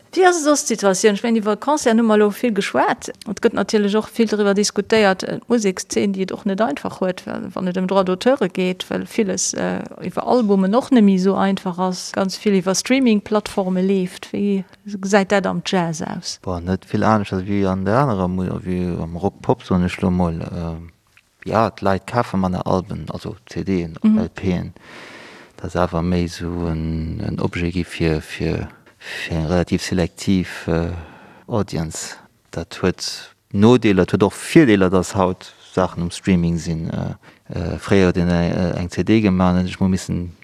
Wéi ass soss d'Situatioun? Ech mengen, iwwer Concerten hu mer elo vill geschwat. Et gëtt natierlech och vill driwwer diskutéiert, d'Musekszeen, déi et och net einfach huet, wann et ëm Droits d'auteure geet, well villes iwwer Albumen och net méi esou einfach ass, ganz vill iwwer Streaming-Plattforme leeft. Wéi gesäit dat am Jazz aus? Bon, net vill aneschters wéi an der anerer, wéi am Rock, Pop, soen ech elo mol. Jo, d'Leit kafe manner Alben, also CDen, LPen. Dat ass awer méi esou en Objet gi fir fir eng relativ selektiv Audience. Dat huet Nodeeler, et huet och Virdeeler, datt haut Saachen um Streaming sinn. Fréier huet een eng CD gemaach an huet sech mol missen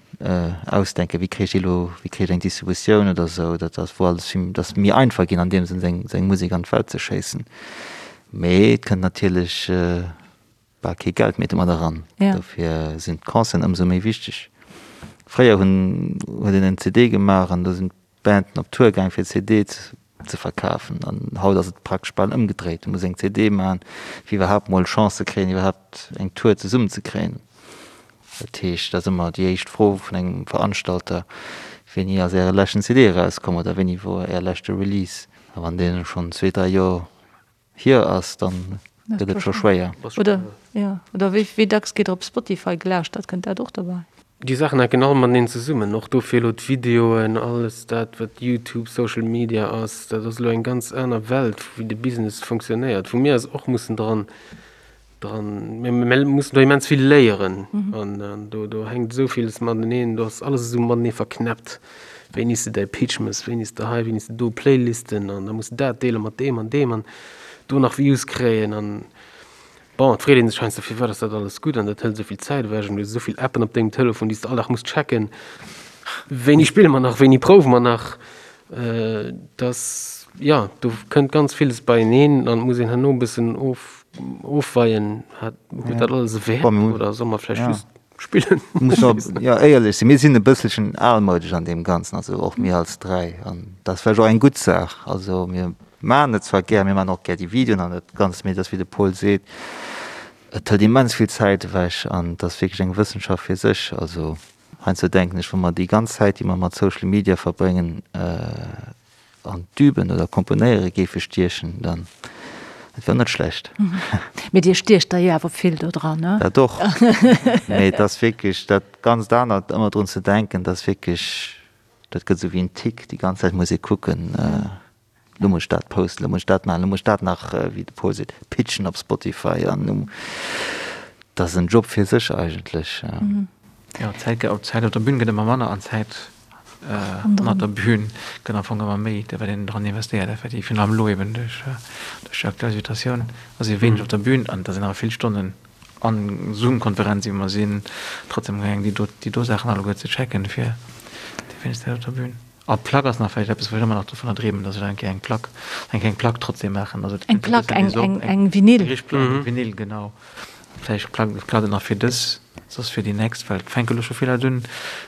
ausdenken, wéi kréich ech déi elo, wéi kréich ech eng Distributioun oder esou. Dat ass wou alles vill, dat ass méi einfach ginn an deem Sënn seng seng Musek an d'Welt ze schéissen. Mee et kënnt natierlech bal kee Geld méi domat eran. Dofir sinn d'Concerten ëmsou méi wichteg. Fréier hunn huet een en CD gemaach an do sinn d'Banden op Tour gaang fir d'CD ze verkafen. An haut ass et praktesch bal ëmgedréit. Du muss eng CD maachen, fir iwwerhaapt mol Chance ze kréien, iwwerhaapt eng Tour zesummen ze kréien. Dat heescht, dat ass ëmmer déi éischt Fro vun engem Veranstalter, Wéini ass Äre leschten CD erauskomm oder wéini wor Är leschte Release? A wann deen schonn zwee, dräi Joer hier ass, dann gëtt et scho schwéier. Oder, jo, oder wéi, wéi dacks geet op Spotify gelauschtert? Kënnt dat och dobäi? Déi Saachen hänken all mateneen zesummen, och dofir elo d'Videoen, alles dat wat Youtube, Social Media ass, dat ass elo eng ganz aner Welt wéi de Business funktionéiert, wou mir eis och mussen dran, dran, mir mussen do immens vill léieren an do do hänkt esou villes mateneen, do ass alles esou matenee verknäppt, wéini s de däi Pitch mëss, wéini s de hei, wéini s de do, Playlisten an da muss de dat deele mat deem an deem an do nach Views kréien an. Bon, et freet een sech heiansdo, firwat ass dat alles gutt an dat hëlt esou vill Zäit ewech an du hues esou vill Appen op dengem Telefon, déi s de all Dag muss checken. Wéini spille mer nach, wéini prouwe mer nach? Dass, jo, do kënnt ganz villes beieneen an et muss een herno e bëssen of, ofweien, hat, huet dat alles e Wäert oder solle mer vläicht just spillen? Muss och, jo, éierlech sinn, mir sinn e bësselchen almoudesch an deem Ganzen, also och mir als 3 an dat ass vläicht och eng gutt Saach. Also mir maachen et zwar gär, mir maachen och gär déi Videoen an dat Ganzt, mee et ass wéi de Paul seet, et hëlt immens vill Zäit ewech an et ass wierklech eng Wëssenschaft fir sech. Also heiansdo denken ech, wa mer déi ganz Zäit, déi mer mat Social Media verbréngen, an d'Üben oder Komponéiere géife stiechen, dann dat wär net schlecht. Mee Dir stiecht der jo awer vill do dran, ne? Dat och. Mee et ass wierklech dat ganzt anert, ëmmer drun ze denken, dat ass wierklech, dat gëtt esou wéi en Tic, déi ganz Zäit muss ee kucken, lo muss ech dat posten, lo muss ech dat maachen, lo muss ech dat nach, wéi de Paul seet, pitchen op Spotify an lo, dat ass en Job fir sech eigentlech. Jo, d'Zäit op d'Zäit op der Bün gëtt ëmmer manner an d'Zäit ënnert der Bün gëtt am Fong ëmmer méi, wat een dran investéiert effektiv. Virun allem elo eben duerch déi aktuell Situatioun ass ee wéineg op der Bün an da sinn awer vill Stonnen an Zoom-Konferenz iwwer mer sinn trotzdem gaangen déi do déi do Saachen alleguer ze checken fir déi wéineg Zäit op der Bün. A Plack ass nach vläicht eppes wou ech ëmmer nach dovunner dreemen, datt ech eng Kéier eng Plack eng kleng Plack trotzdem maachen. Also Eng Plack, eng eng eng Vinyl. Eng richteg Plack, eng Vinyl, genau. Vläicht klappt et nach fir dës, soss fir déi nächst, well et fänke lo scho vill Leit un.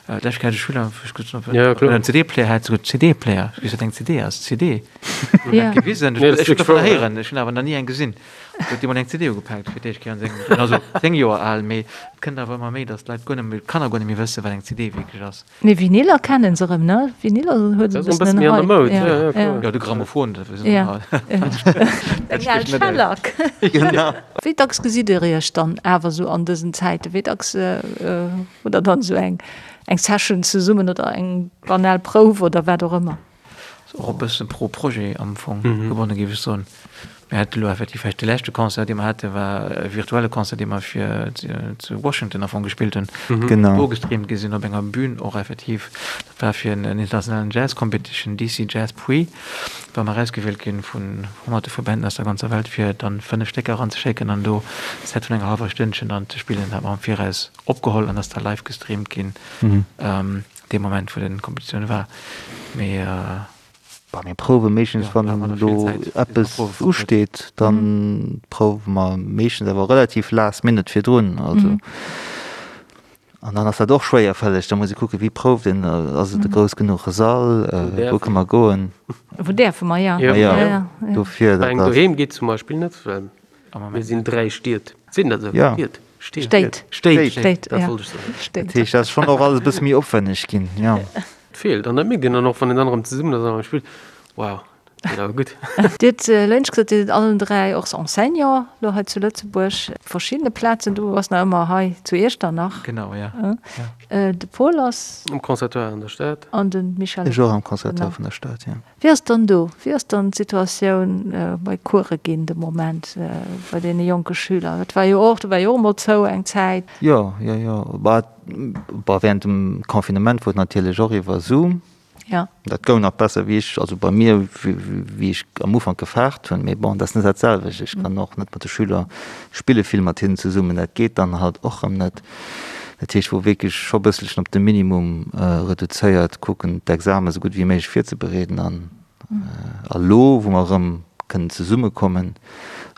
D'lescht Kéier hat e Schüler, wou ech gesot hunn, ob en en CD-Player hätt, esou CD-Player, ech weess wat eng CD ass, CD, huet dat gewisen, ech hunn dovunner héieren, ech hunn awer nach ni eng gesinn, huet dee mol eng CD ugepaakt fir d'éischt Kéier an sengem Liewen, also 10 Joer al, mee et kënnt awer ëmmer méi, datt d'Leit guer net méi, d'Kanner guer net méi wëssen, wat eng CD wierklech ass. Mee Vinyler kennen se erëm, ne? Vinyler huet e bëssen en Hype. Ja, ja, ja. Jo, de Grammophon, dat wëssen se all. Eng al Schellack. Genau. Wéi dacks gesitt Dir Iech dann awer esou an dësen Zäiten? Wéi dacks hutt Der dann esou eng Session zesummen oder eng banal Prouf oder wat och ëmmer? Ass och e bësse pro Projet am Fong gebonne géif ech soen. Mir hate lo effektiv vläicht de leschte Concert, dee mer hate war e virtuelle Concert, dee mer fir zu Washington am Fong gespillt hunn, Genau. do gestreamt gi sinn op enger Bühn och effektiv. Dat war fir en internationalen Jazz Competition, DC Jazz Prix, war mer erausgewielt ginn vun honnerte vu Banden aus der ganzer Welt fir dann 5 Stécker eranzeschécken an do e Set vun enger hallwer Stënnchen dann ze spillen. Dat hat mer am Viraus opgeholl an ass da live gestreamt ginn. Dee Moment wou den Kompetitioun war, mee. Bah mir prouwe meeschtens wann elo eppes usteet, dann prouwe mer meeschtens awer relativ last minute virdrun, also an dann ass dat och schwéierfälleg, da muss ee kucke wéi prouft een, ass et e grouss genuche Sall, wou kënne mer goen. Wou däerfe mer, jo. Jo, dofir dat ass. Doheem geet zum Beispill net, well Mir sinn 3 Stied. Sinn dat esou? Ja. Stied? Stéit. Stéit. Stéit, Dat ja. wollt ech soen. Stéit. Dat heescht, dat ass schonn och alles e bësse méi opwenneg ginn, jo. Et feelt. An dat mierkt een dann och, wann een dann erëm zesummen ass an erëm spillt, Wow, dat geet awer gutt. Dir hutt lënsch gesot, Dir sidd allen 3 och Enseignant elo hei zu Lëtzebuerg, op verschiddene Plazen. Du bass nach ëmmer hei zu Iechternach. Genau, ja. De Paul ass. Am Conservatoire an der Stad. An de Michel. Ech och am Conservatoire vun der Stad, jo. Wéi ass dann do, wéi ass dann d'Situatioun bei Course ginn de Moment bei deene jonke Schüler? Dat war jo och, do war jo och emol zou eng Zäit. Jo, jo, jo. Bah, bah während dem Confinement wor et natierlech och iwwer Zoom. Ja. Dat goung nach besser wéi ech, also bei mir, wéi ech am Ufank gefaart hunn. Mee bon, dat ass net dat selwecht. Ech kann och net mat de Schüler spille vill mat hinnen zesummen. Dat geet dann halt och erëm net. Dat heescht, wou wierklech scho bësselchen op de Minimum reduzéiert kucken, d'Examen esou gutt wéi méiglech virzebereeden. An elo, wou mer erëm kënnen zesummekommen,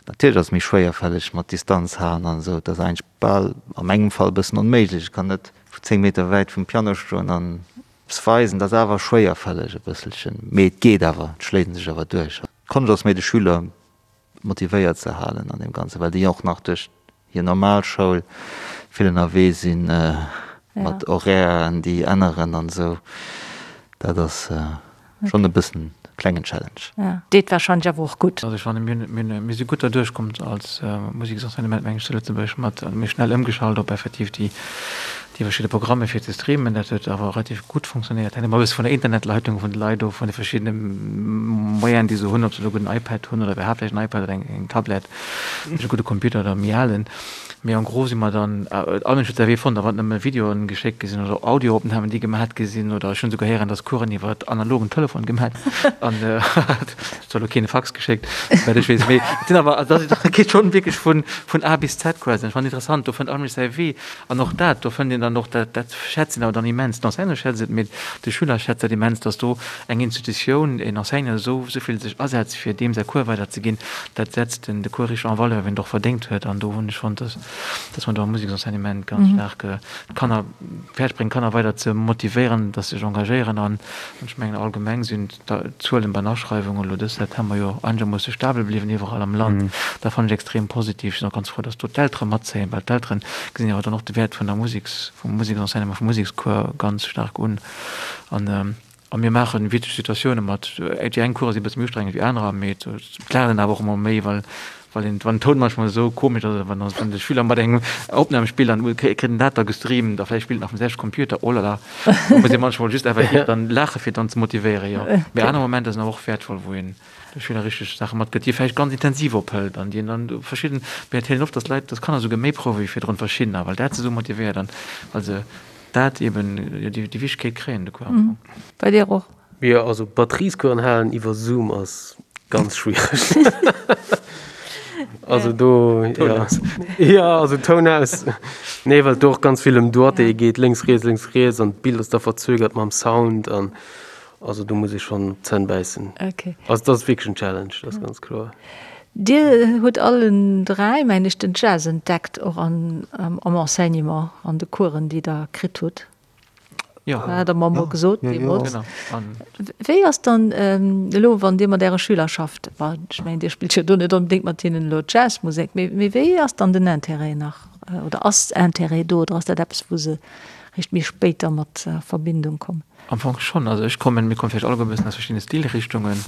natierlech ass et méi schwéierfälleg mat Distanz halen an esou, et ass eigentlech bal a mengem Fall e bëssen onméiglech. Ech kann net vu 10 Meter wäit vum Piano stoen an eppes weisen. Dat ass awer schwéierfälleg e bësselchen, mee et geet awer, et schléit een sech awer duerch. D'Konscht ass méi de Schüler motivéiert ze halen an deem Ganzen, well déi och nach duerch hir normal Schoul vill ënnerwee sinn, mat Horairen, déi änneren an esou. Dat ass schonn e bëssen e klengen Challenge. Deet warscheinlech awer och gutt. Also ech fannen, mir hunn, mir si gutt derduerch komm als Museksenseignement, meng ech, zu Lëtzebuerg mat, mir hu schnell ëmgeschalt op effektiv déi. déi verschidde Programme fir ze streamen. Dat huet awer relativ gutt funktionéiert. Hänkt ëmmer e bësse vun der Internetleitung vun de Leit of, vun de verschiddene Moyenen, déi se hunn, ob se elo e gudden iPad hunn oder iwwerhaapt vläicht en iPad oder eng Tablett, e gudde Computer oder méi alen. Mee en gros si mer dann, all Mënsch huet säi Wee fonnt, a wann et nëmme Videoen geschéckt gi sinn oder Audioopnamen, déi gemat gi sinn, oder ech hunn esouguer héieren, dass Coursen iwwer analogen Telefon gemat an et huet elo keen e Fax geschéckt, souwäit ech weess. Mee et sinn awer, also dat geet schonn wierklech vun, vun A bis Z quasi. An ech fannen interessant, do fënnt all Mënsch säi Wee. An och dat, do fënnt een dann och, dat, dat schätzt een awer dann immens, d'Enseignante schätzt et, mee de Schüler schätzt dat immens, dass do eng Institutioun, een Enseignant esou, esou vill sech asetzt, fir deem säi Cours weiderzeginn. Dat setzt den de Cours richteg en valeur, wéi en et och verdéngt huet. An do hunn ech fonnt, dass, dass mer do am Museksenseignement ganz staark d'Kanner fäerdeg bréngen, d'Kanner weider ze motivéieren, dass se sech engagéieren. An ech mengen, allgemeng sinn d'Zuelen bei den Aschreiwungen elo dës September jo einegermoosse stabel bliwwen iwwerall am Land. Dat fannen ech extrem positiv. Ech sinn och ganz frou, dass do d'Eltere matzéien, well d'Eltere gesinn jo awer dann och de Wäert vun der Museks, vum Museksenseignement, vum Musekscours ganz staark un. An A mir maachen witzeg Situatioune mat. Déi eng Course si e bësse méi ustrengend wéi anerer, mee et laacht een awer och ëmmer méi, well well een, wann den Toun manchmal esou komesch ass oder wann wann de Schüler mat engem Opnam spillt an kritt en dat da gestreamt a vläicht spillt en nach vum selwechte Computer, oh la la, do muss ee manchmal just effektiv dann laache fir dann ze motivéieren, jo. Mee aner Momenter sinn awer och wäertvoll, wou een de Schüler richteg Saache matgëtt, déi e vläicht ganz intensiv ophëlt an déi en dann verschidden, mir erzielen oft, dass d'Leit, dass Kanner esouguer méi prouwe wéi virdrun verschiddener, well dat se esou motivéiert an well se Dat eben, jo, déi Wichtegkeet kréien de Cours am Fong. Bei dir och? Jo, also Batteriescoursen halen iwwer Zoom ass ganz schwiereg. Also do, ja. Ja, also Toun aus. Nee, well et do och ganz vill ëm Doigté geet, lénks, riets, lénks, riets an d'Bild ass da verzögert mam Sound an also do muss ee schonn op d'Zänn bäissen. Okay. Also dat ass wierklech en Challenge, dat ass ganz kloer. Dir hutt allen 3, mengen ech, den Jazz entdeckt, och an, am Enseignement, an de Coursen, déi Der kritt hutt. Jo. Hat Der mer emol gesot deemools. Genau. An. Wéi ass dann elo, wann Dir mat Äre Schüler schafft, bon, ech mengen, Dir spillt jo do net onbedéngt mat hinnen elo Jazzmusek, mee, mee wéi ass dann den Intérêt nach, oder ass Intérêt do, oder ass dat eppes, wou se réischt méi spéit da mat a Verbindung kommen? Am Fong schonn. Also ech kommen, mir komme vläicht alleguer e bëssen aus verschiddene Stilrichtungen,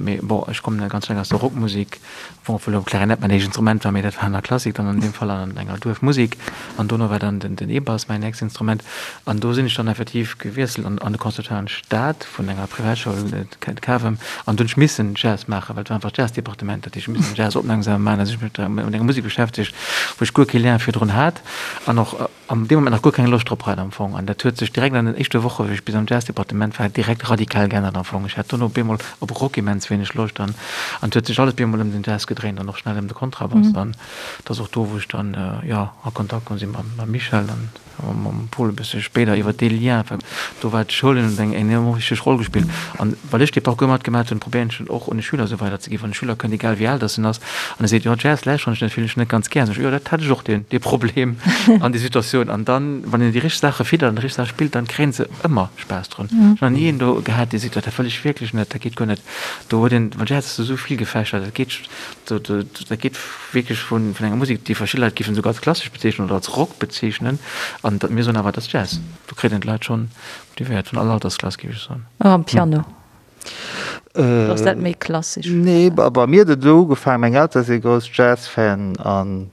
mee bon, ech kommen ganz staark aus der Rockmusek, bon, obwuel elo Klarinett mäin éischt Instrument war, mee dat war an der Klassik dann an deem Fall an enger Duerfmusek. An dono war dann den E-Bass mäin nächst Instrument. An do sinn ech dann effektiv gewiesselt an an de Conservatoire an d'Stad vun enger Privatschoul, d'Cavem, an do hunn ech missen Jazz maachen, well et war einfach d'Jazzdepartement, dat heescht, ech missen Jazz opmierksam maachen, also ech hu mech mat enger Musek beschäftegt, wou ech guer kee Lien virdrun hat an och an deem Moment nach guer keng Loscht drop hat am Fong. An dat huet sech direkt an den éischte Woche wéi ech bis am Jazzdepartement war direkt radikal geännert am Fong. Ech hat dono op eemol op Rock immens wéineg Loscht an an et huet sech alles op eemol ëm den Jazz gedréint an och schnell ëm de Kontrabass. An et ass och do wou ech dann jo a Kontakt komm sinn mam Michel an mam Paul e bësse spéider iwwer dee Lien, well do war d'Schoul hunn eng enorm wichteg Roll gespillt. An well ech dee Parcours matgemaach hunn, probéieren ech en och un de Schüler esou weiderzeginn. Wann e Schüler kënnt, egal wéi al dass en ass, An e seet, jo Jazz lauschteren ech net, fillen ech net ganz gär. Sag ech, jo dat hat ech och deen, dee Problem an déi Situatioun. An dann, wann een déi richteg Saache fiddert an déi richteg Saache spillt, dann kréien se ëmmer Spaass drun. Ech hunn nach ni een do gehat, dee seet, jo dat wëll ech wierklech net, dat geet guer net. Do huet een, well Jazz ass esou vill gefächert, dat geet, do, do, dat geet wierklech vun, vun enger Musek, déi verschidde Leit géifen esouguer als klassesch bezeechnen oder als Rock bezeechnen. An dat, mir soen awer, dat ass Jazz. Do kritt een d'Leit schonn motivéiert, vun all Altersklass, géif ech soen. Am Piano. Oder ass dat méi klassesch? Nee, bei mir huet et esou ugefaangen, meng Eltere si grouss Jazz-Fan an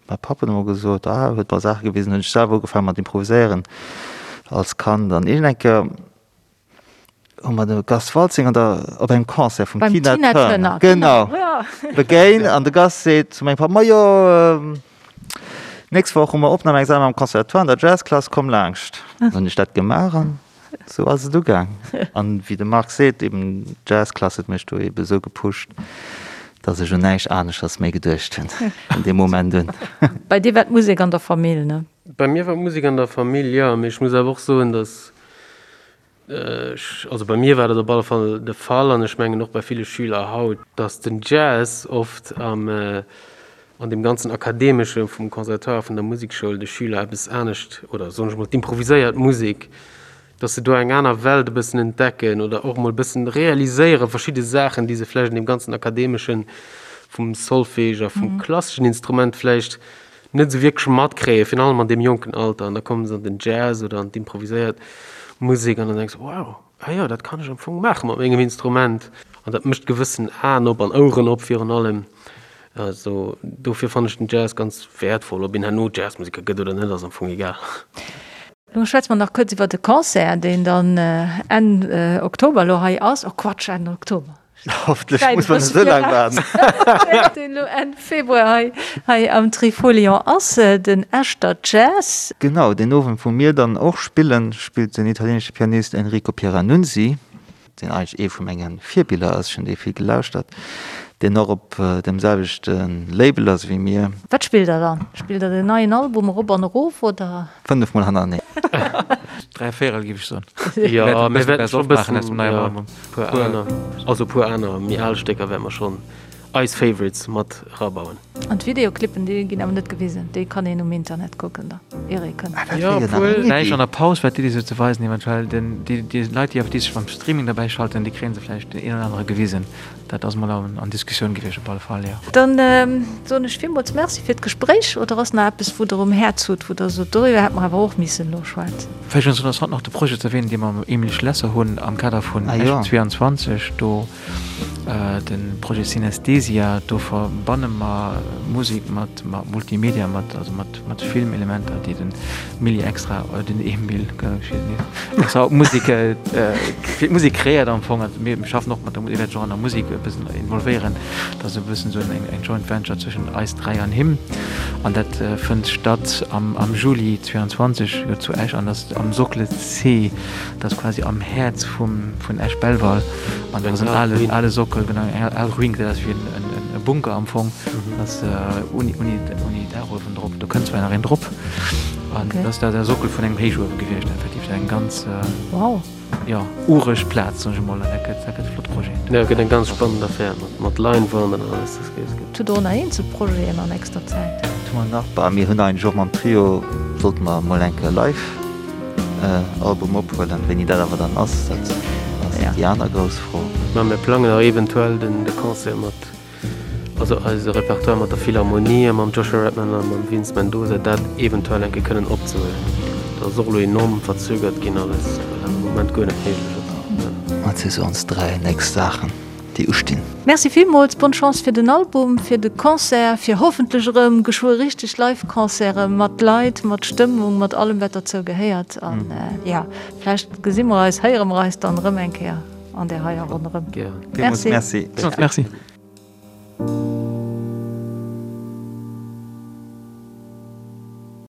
mäi Papp huet emol gesot, ah, huet mer Saache gewisen, hunn ech selwer ugefaangen mat improviséieren als Kand an iergend eng Kéier hu mer de Gast Waltzing an der, op engem Concert vum Tina Turner, genau, begéint an de Gast seet zu mengem Papp, majo, nächst Woch hu mer Opnamexamen am Conservatoire an der Jazzklass, komm laanscht. Dann hunn ech dat gemaach an Sou ass et ugaang. An wéi de Marc seet, eben d'Jazzklass huet mech do eben esou gepusht, dass ech un näischt aneschters méi geduecht hunn vun deem Moment un. Bei dir war d'Musek an der Famill, ne? Bei mir war d'Musek an der Famill, jo. Mee ech muss awer och soen, dass ech, also bei mir war dat op alle Fall de Fall an ech mengen och bei ville Schüler haut, dass den Jazz oft am, an deem ganzen Akademesche vum Conservatoire, vun der Musekschoul de Schüler eppes anescht, oder soen ech mol d'improviséiert Musek, dass se do eng aner Welt e bëssen entdecken oder och mol e bëssen realiséiere verschidde Saachen, déi se vläicht an deem ganzen Akademesche vum Solfège a vum klasseschen Instrument vläicht net esou wierklech matkréien, virun allem an deem jonken Alter. An da kommen se an den Jazz oder an d'improviséiert Musek an dann denks de, wow, ah jo, dat kann ech am Fong maache mat mengem Instrument. An dat mécht gewëssen Aen op an Oueren op virun allem. Also dofir fannen ech den Jazz ganz wäertvoll. Ob een herno Jazzmuseker gëtt oder net, ass am Fong egal. Lo schwätze mer nach kuerz iwwer de Concert, deen dann Enn Oktober elo hei ass. Oh Quatsch, Enn Oktober. Hoffentlech muss mer net esou laang waarden. Deen elo Enn Februar hei hei am Trifolion ass, den Echter Jazz. Genau, deen Owend wou mir dann och spillen, spillt den italienesche Pianist Enrico Pieranunzi. deen eigentlech ee vu menge Virbiller ass, ech hunn dee vill gelauschtert, deen och op deem selwechte Label ass wéi mir. Wat spillt der dann? Spillt der den neien Album erop an erof oder? 5 mol hannereneen. 3 Véierel géif ech soen. Jo, mir wäerten scho bëssen aus dem neien Album. Puer aner, also puer aner méi al Stécker wäerte mer schonn eis Favorites mat erabauen. An d'Videoclippen, déi ginn awer net gewisen, déi kann een um Internet kucken da, ier ee kënnt. Ah, dat wär jo nach eng Iddi. Vläicht an der Paus war d'Iddi sou ze weisen, eventuell den, déi, déi Leit, déi déi sech beim Streaming derbäi schalten, déi kréie se vläicht den een oder anere gewisen. Dat ass mol an, an Diskussioun gewiescht op alle Fall, jo. Dann soen ech villmools Merci fir d'Gespréich. Oder ass nach eppes, wou Der um Häerz hutt, wou Der sot, doriwwer hätte mer awer och missen elo schwätzen? Vläicht ass interessant nach de Projet ze erwähnen, dee mer mam Emile Schlesser hunn am Kader vun Esch 22, do, De Projet Synesthesia, do verbanne mer Musek mat Multimedia, mat also mat Filmelementer, déi den Milli extra, den Emil extra op d'Musek, fir d'Musek kreéiert am Fong. Also mir schaffen och mat der Musek, wäert sech och an der Musek e bëssen involvéieren. Dat ass e bëssen esou eng Joint Venture zwëschen eis 3 an him. An dat fënnt statt am Juli 22 jo zu Esch an ass am Socle C. Dat ass quasi am Häerz vum vun Esch-Belval an dat ass en ale ale Sockel, genau eng al Ruin, gesäit aus wéi en en Bunker am Fong. Dat ass uni uni uni Daachuewen drop, do kënnt zwar nach een drop an dat ass da de Sockel vun engem Héichuewe gewiescht effektiv. Dat eng ganz Wow. jo ureg Plaz soen ech emol an dat gëtt dat gëtt e flott Projet. Jo, gëtt eng ganz spannend Affär mat mat Leinwand an alles, dat gëtt gëtt. Hutt Der och nach eenzel Projeten an nächster Zäit? Dat hu mer nach, bah mir hunn eigentlech och mam Trio sollte mer emol eng Kéier live. Album ophuelen. Wéini dat awer dann ass, dat ass déi aner grouss Fro. Mä mir plangen och eventuell den de Concert mat, also eise Repertoire mat der Philharmonie a mam Joshua Redman a mam Vince Mendoza, dat eventuell eng Kéier kënnen opzehuelen. Dat ass och elo enorm verzögert ginn alles, well dat am Moment guer net méiglech ass. Dat si sou ons 3 nächst Saachen. Déi ustinn. Merci villmools, bonne Chance fir den Album, fir de Concert, fir hoffentlech erëm geschwë richteg Live-Concerte mat Leit, mat Stëmmung, mat allem wat derzou gehéiert. An jo, vläicht gesi mer eis, héiere mer eis dann erëm eng Kéier an där heier Ronn erëm. Merci. Merci.